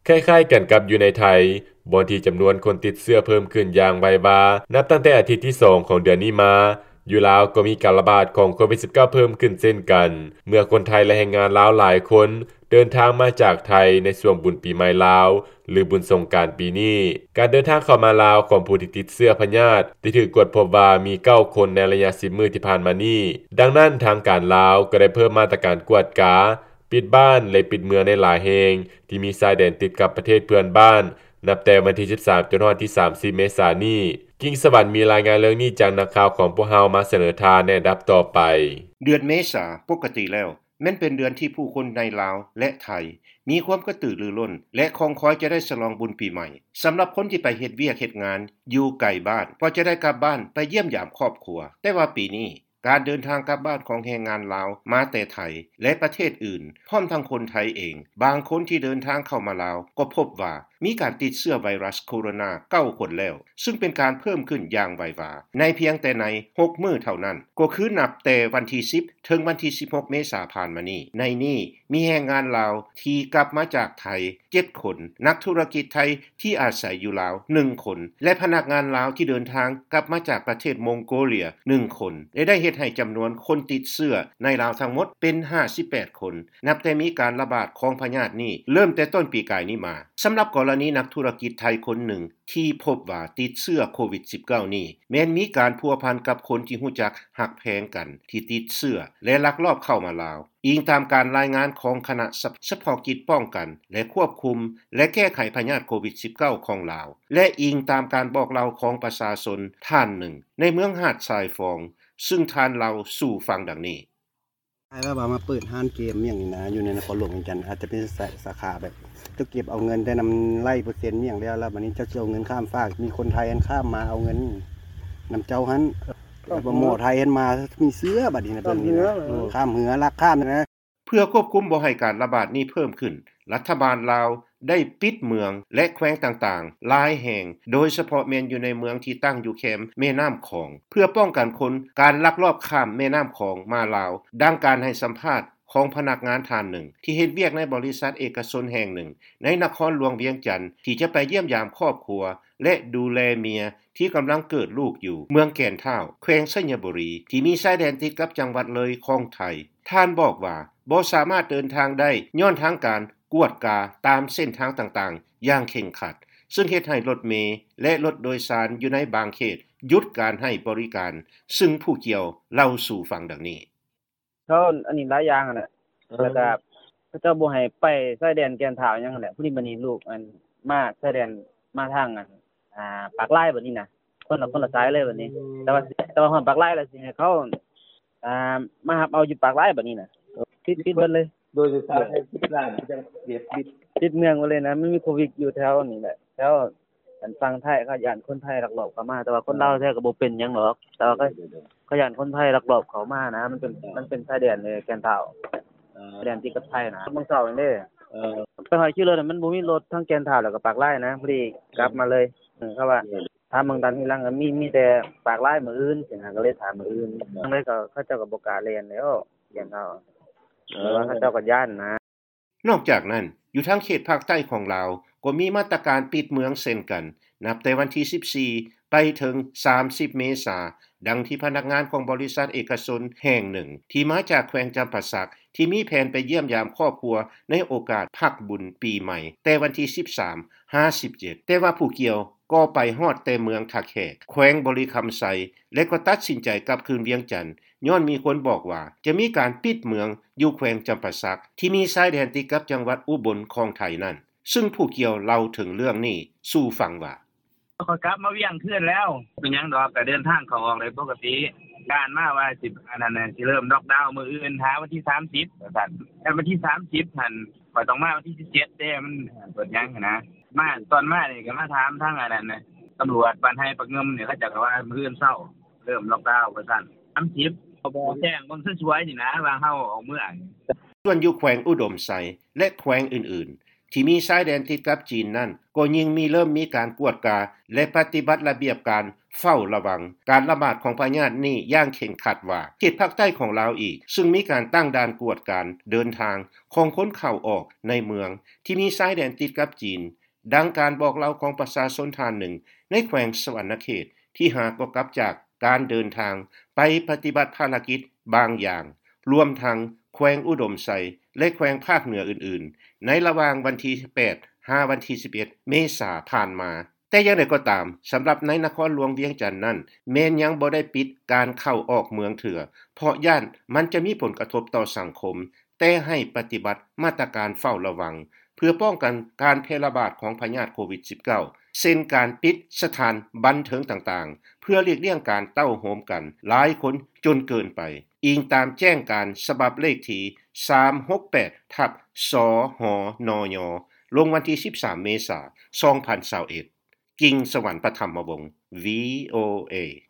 ຄ້າຍໆກັນກັບຢູ່ໃນໄທ, ບ່ອນທີ່ຈຳນວນຄົນຕິດເຊື້ອເພີ່ມຂຶ້ນຢ່າງໄວວາ ນັບຕັ້ງແຕ່ອາທິດທີສອງຂອງເດືອນນີ້ມາ, ຢູ່ລາວກໍມີການລະບາດຂອງໂຄວິດສິບເກົ້າເພີ່ມຂຶ້ນເຊັ່ນກັນ, ເມື່ອຄົນໄທ ແລະ ແຮງງານລາວຫຼາຍຄົນເດີນທາງມາຈາກໄທໃນຊ່ວງບຸນປີໃໝ່ລາວ ຫຼື ບຸນສົງການປີນີ້. ການເດີນທາງເຂົ້າມາລາວຂອງຜູ້ທີ່ຕິດເຊື້ອພະຍາດ ໄດ້ຖືກກວດພົບວ່າມີເກົ້າຄົນໃນໄລຍະສິບມື້ທີ່ຜ່ານມານີ້. ດັ່ງນັ້ນ, ທາງການລາວກໍໄດ້ເພີ່ມມາດຕະການກວດກາ, ປິດບ້ານ ແລະ ປິດເມືອງໃນຫຼາຍແຫ່ງທີ່ມີຊາຍແດນຕິດກັບປະເທດເພື່ອນບ້ານ ນັບແຕ່ວັນທີສິບສາມ ຈົນຮອດທີສາມສິບ ເມສານີ້. ກິ່ງສະຫວັນມີລາຍງານເລື່ອງນີ້ຈາກນັກຂ່າວຂອງພວກເຮົາມາສະເໜີທ່ານໃນອັນດັບຕໍ່ໄປ. ເດືອນເມສາປົກກະຕິແລ້ວ ແມ່ນເປັນເດືອນທີ່ຜູ້ຄົນໃນລາວ ແລະ ໄທ ມີຄວາມກະຕືລືລົ້ນ ແລະ ຄອງຄອຍຈະໄດ້ສະຫຼອງບຸນປີໃໝ່. ສຳລັບຄົນທີ່ໄປເຮັດວຽກເຮັດງານຢູ່ໄກບ້ານ ກໍຈະໄດ້ກັບບ້ານໄປຢ້ຽມຢາມຄອບຄົວ. ແຕ່ວ່າປີນີ້ ການເດີນທາງກັບບ້ານຂອງແຮງງານລາວມາແຕ່ໄທ ແລະ ປະເທດອື່ນ ພ້ອມທັງຄົນໄທເອງ ບາງຄົນທີ່ເດີນທາງເຂົ້າມາລາວ ກໍພົບວ່າ ມີການຕິດເຊື້ອໄວຣັສໂຄໂຣນາເກົ້າຄົນແລ້ວ, ຊຶ່ງເປັນການເພີ່ມຂຶ້ນຢ່າງໄວວາ ໃນພຽງແຕ່ໃນຫົກມື້ເທົ່ານັ້ນ, ກໍຄືນັບແຕ່ວັນທີສິບ ເຖິງວັນທີສິບຫົກ ເມສາຜ່ານມານີ້. ໃນນີ້ມີແຮງງານລາວທີ່ກັບມາຈາກໄທເຈັດຄົນ, ນັກທຸລະກິດໄທທີ່ອາໄສຢູ່ລາວໜຶ່ງຄົນ ແລະ ພະນັກງານລາວທີ່ເດີນທາງກັບມາຈາກປະເທດມົງໂກເລຍໜຶ່ງຄົນ ແລະ ໄດ້ເຮັດໃຫ້ຈຳນວນຄົນຕິດເຊື້ອໃນລາວທັງໝົດເປັນຫ້າສິບແປດຄົນ ນັບແຕ່ມີການລະບາດຂອງພະຍາດນີ້ເລີ່ມແຕ່ຕົ້ນປີກາຍນີ້ມາ. ສຳລັບກໍລະນີນັກທຸລະກິດໄທຄົນໜຶ່ງທີ່ພົບວ່າຕິດເຊື້ອໂຄວິດສິບເກົ້ານີ້ ແມ່ນມີການພົວພັນກັບຄົນທີ່ຮູ້ຈັກຮັກແພງກັນທີ່ຕິດເຊື້ອ ແລະ ລັກລອບເຂົ້າມາລາວ, ອີງຕາມການລາຍງານຂອງຄະນະສະ ສະເພາະກິດປ້ອງກັນ ແລະ ຄວບຄຸມ ແລະ ແກ້ໄຂພະຍາດໂຄວິດສິບເກົ້າຂອງລາວ ແລະ ອີງຕາມການບອກເລົ່າຂອງປະຊາຊົນທ່ານໜຶ່ງໃນເມືອງຫາດຊາຍຟອງ, ຊຶ່ງທ່ານເລົ່າສູ່ຟັງດັ່ງນີ້. ແບບວ່າມາເປີດຮ້ານເກມຫຍັງນີ້ນະ ຢູ່ໃນນະຄອນຫຼວງວຽງຈັນ ອາດຈະເປັນສາ ສາຂາແບບ ເຈົ້າເກັບເອົາເງິນແຕ່ນຳໄລ່ເປີເຊັນຫຍັງແລ້ວ ແລ້ວບັດນີ້ເຈົ້າຊິເອົາເງິນຂ້າມຟາກ ມີຄົນໄທຫັ້ນຂ້າມມາເອົາເງິນນຳເຈົ້າຫັ້ນ ແລ້ວໝໍໄທຫັ້ນມາມີເຊື້ອ ບັດນີ້ນະ ເບິ່ງນີ້ນະ ຂ້າມເຮືອ ລັກຂ້າມນະ. ເພື່ອຄວບຄຸມບໍ່ໃຫ້ການລະບາດນີ້ເພີ່ມຂຶ້ນ, ລັດຖະບານລາວໄດ້ປິດເມືອງ ແລະ ແຂວງຕ່າງໆຫຼາຍແຫ່ງ, ໂດຍສະເພາະແມ່ນຢູ່ໃນເມືອງທີ່ຕັ້ງຢູ່ແຄມແມ່ນ້ຳຂອງ ເພື່ອປ້ອງກັນຄົນ ການລັກລອບຂ້າມແມ່ນ້ຳຂອງມາລາວ, ດັ່ງການໃຫ້ສຳພາດຂອງພະນັກງານທ່ານໜຶ່ງ ທີ່ເຮັດວຽກໃນບໍລິສັດເອກະຊົນແຫ່ງໜຶ່ງໃນນະຄອນຫຼວງວຽງຈັນ ທີ່ຈະໄປຢ້ຽມຢາມຄອບຄົວ ແລະ ດູແລເມຍ ທີ່ກຳລັງເກີດລູກຢູ່ເມືອງແກ່ນທ້າວ ແຂວງໄຊຍະບູລີ ທີ່ມີຊາຍແດນຕິດກັບຈັງຫວັດເລີຍຂອງໄທ. ທ່ານບອກວ່າ ບໍ່ສາມາດເດີນທາງໄດ້ ຍ້ອນທາງການກວດກາຕາມເສັ້ນທາງຕ່າງໆຢ່າງເຄັ່ງຄັດ, ຊຶ່ງເຮັດໃຫ້ລົດເມ ແລະ ລົດໂດຍສານຢູ່ໃນບາງເຂດຢຸດການໃຫ້ບໍລິການ, ຊຶ່ງຜູ້ກ່ຽວເລົ່າສູ່ຟັງດັ່ງນີ້. ເຂົາອັນນີ້ຫຼາຍຢ່າງຫັ້ນແຫຼະ ເອີ ແລ້ວກະເຂົາເຈົ້າບໍ່ໃຫ້ໄປຊາຍແດນແກ່ນທ້າວຫຍັງຫັ້ນແຫຼະ. ຜູ້ນີ້ ບັດນີ້ລູກອັນມາຊາຍແດນ ມາທາງອັນ ອ່າ ປາກລາຍບັດນີ້ນະ ຄົນລະ ຄົນລະສາຍເລີຍບັດນີ້. ແຕ່ວ່າ ແຕ່ວ່າຮອດປາກລາຍແລ້ວ ຊິໃຫ້ເຂົາ ອ່າ ມາຮັບເອົາຢູ່ປາກລາຍບັດນີ້ນະ ປິດ ປິດເບິດເລີຍ. ໂດຍສາຍ ສິບລ້ານ ຍັງເສຍຊີວິດ ປິດເມືອງໄປເລີຍນະ. ມັນມີໂຄວິດຢູ່ແຖວນີ້ແຫຼະ ແຖວ ອັນຝັ່ງໄທ ເຂົາຢ້ານຄົນໄທລັກລອບເຂົ້າມາ, ແຕ່ວ່າຄົນລາວແທ້ກໍບໍ່ເປັນຫຍັງດອກ ແຕ່ວ່າເຂົາ ເຂົາຢ້ານຄົນໄທລັກລອບເຂົ້າມານະ. ມັນເປັນ ມັນເປັນຊາຍແດນແກ່ນທ້າວ ຊາຍແດນຕິດກັບໄທນະ. ມື້ເຊົ້ານີ້ເດ້ ໄປຮອດຂີ່ລົດ ມັນບໍ່ມີລົດທາງແກ່ນທ້າວ ແລ້ວກໍປາກລາຍນະ ພໍດີກັບມາເລີຍ. ເອີ ເຂົາວ່າ ຖາມເບິ່ງຕາມທີຫຼັງ ກໍມີ ມີແຕ່ປາກລາຍມື້ອື່ນຊີ້ນະ ກໍເລີຍຖາມມື້ອື່ນ. ຈັ່ງໃດກໍເຂົາເຈົ້າກໍບໍ່ກ້າແລ່ນແລ້ວ ແກ່ນທ້າວ ເອີ ແຕ່ວ່າເຂົາເຈົ້າກໍຢ້ານນະ. ນອກຈາກນັ້ນ, ຢູ່ທາງເຂດພາກໃຕ້ຂອງລາວ ກໍມີມາດຕະການປິດເມືອງເຊັ່ນກັນ ນັບແຕ່ວັນທີສິບສີ່ ໄປເຖິງສາມສິບ ເມສາ, ດັ່ງທີ່ພະນັກງານຂອງບໍລິສັດເອກະຊົນແຫ່ງໜຶ່ງ ທີ່ມາຈາກແຂວງຈຳປາສັກ ທີ່ມີແຜນໄປຢ້ຽມຢາມຄອບຄົວໃນໂອກາດພັກບຸນປີໃໝ່ ແຕ່ວັນທີສິບສາມ ຫາ ສິບເຈັດ ແຕ່ວ່າຜູ້ກ່ຽວກໍໄປຮອດແຕ່ເມືອງທ່າແຂກ ແຂວງບໍລິຄຳໄຊ ແລະ ກໍຕັດສິນໃຈກັບຄືນວຽງຈັນ ຍ້ອນມີຄົນບອກວ່າຈະມີການປິດເມືອງຢູ່ແຂວງຈຳປາສັກ ທີ່ມີຊາຍແດນຕິດກັບຈັງຫວັດອຸບົນຂອງໄທນັ້ນ, ຊຶ່ງຜູ້ກ່ຽວເລົ່າເຖິງເລື່ອງນີ້ສູ່ຟັງວ່າ. ຂ້ອຍກັບມາວຽງຄືນແລ້ວ ເປັນຫຍັງດອກ ກໍເດີນທາງເຂົ້າອອກໄດ້ປົກກະຕິ. ການມາວ່າຊິ ອັນນັ້ນ ຊິເລີ່ມລັອກດາວມື້ອື່ນ ຫາວັນທີສາມສິບ ວ່າຊັ້ນ. ຄັນວັນທີສາມສິບຫັ້ນ ຂ້ອຍຕ້ອງມາວັນທີສິບເຈັດເດ້ ມັນເປີດຫຍັງຫັ້ນນະ. ມາ ຕອນມານີ້ກໍມາຖາມທາງອັນນັ້ນນະ ຕຳຫຼວດບ້ານໄຮ່ປາກງື່ມນີ້ ເຂົາເຈົ້າກໍວ່າມື້ອື່ນເຊົ້າເລີ່ມລັອກດາວວ່າຊັ້ນ. ສາມສິບ ກໍບອກແຈ້ງເບິ່ງສວຍໆນີ້ນະ ວ່າເຮົາອອກເມືອງ. ສ່ວນຢູ່ແຂວງອຸດົມໄຊ ແລະ ແຂວງອື່ນໆ ທີ່ມີຊາຍແດນຕິດກັບຈີນນັ້ນ ກໍຍິ່ງມີ ເລີ່ມມີການກວດກາ ແລະ ປະຕິບັດລະບຽບການ ເຝົ້າລະວັງການລະບາດຂອງພະຍາດນີ້ຢ່າງເຄັ່ງຄັດວ່າ ເຂດພາກໃຕ້ຂອງລາວອີກ ຊຶ່ງມີການຕັ້ງດ່ານກວດກາເດີນທາງຂອງຄົນເຂົ້າອອກໃນເມືອງທີ່ມີຊາຍແດນຕິດກັບຈີນ. ດັ່ງການບອກເລົ່າຂອງປະຊາຊົນທ່ານໜຶ່ງໃນແຂວງສະຫວັນນະເຂດ ທີ່ຫາກໍກັບຈາກການເດີນທາງໄປປະຕິບັດພາລະກິດບາງຢ່າງ ລວມທັງແຂວງອຸດົມໄຊ ແລະ ແຂວງພາກເໜືອອື່ນໆ ໃນລະຫວ່າງວັນທີແປດ ຫາວັນທີສິບເອັດ ເມສາຜ່ານມາ. ແຕ່ຢ່າງໃດກໍຕາມ, ສຳລັບໃນນະຄອນຫຼວງວຽງຈັນນັ້ນ ແມ່ນຍັງບໍ່ໄດ້ປິດການເຂົ້າອອກເມືອງເທື່ອ ເພາະຢ້ານມັນຈະມີຜົນກະທົບຕໍ່ສັງຄົມ, ແຕ່ໃຫ້ປະຕິບັດມາດຕະການເຝົ້າລະວັງ ເພື່ອປ້ອງກັນການແຜ່ລະບາດຂອງພະຍາດໂຄວິດສິບເກົ້າ ເຊັ່ນການປິດສະຖານບັນເທີງຕ່າງໆ ເພື່ອຫຼີກລ່ຽງການເຕົ້າໂຮມກັນຫຼາຍຄົນຈົນເກີນໄປ, ອີງຕາມແຈ້ງການສະບັບເລກທີສາມຫົກແປດ ທັບ ສຫນຍ ລົງວັນທີສິບສາມ ເມສາ ສອງພັນຊາວເອັດ. ກິ່ງສະຫວັນ ປະຖຳມະວົງ ວີໂອເອ.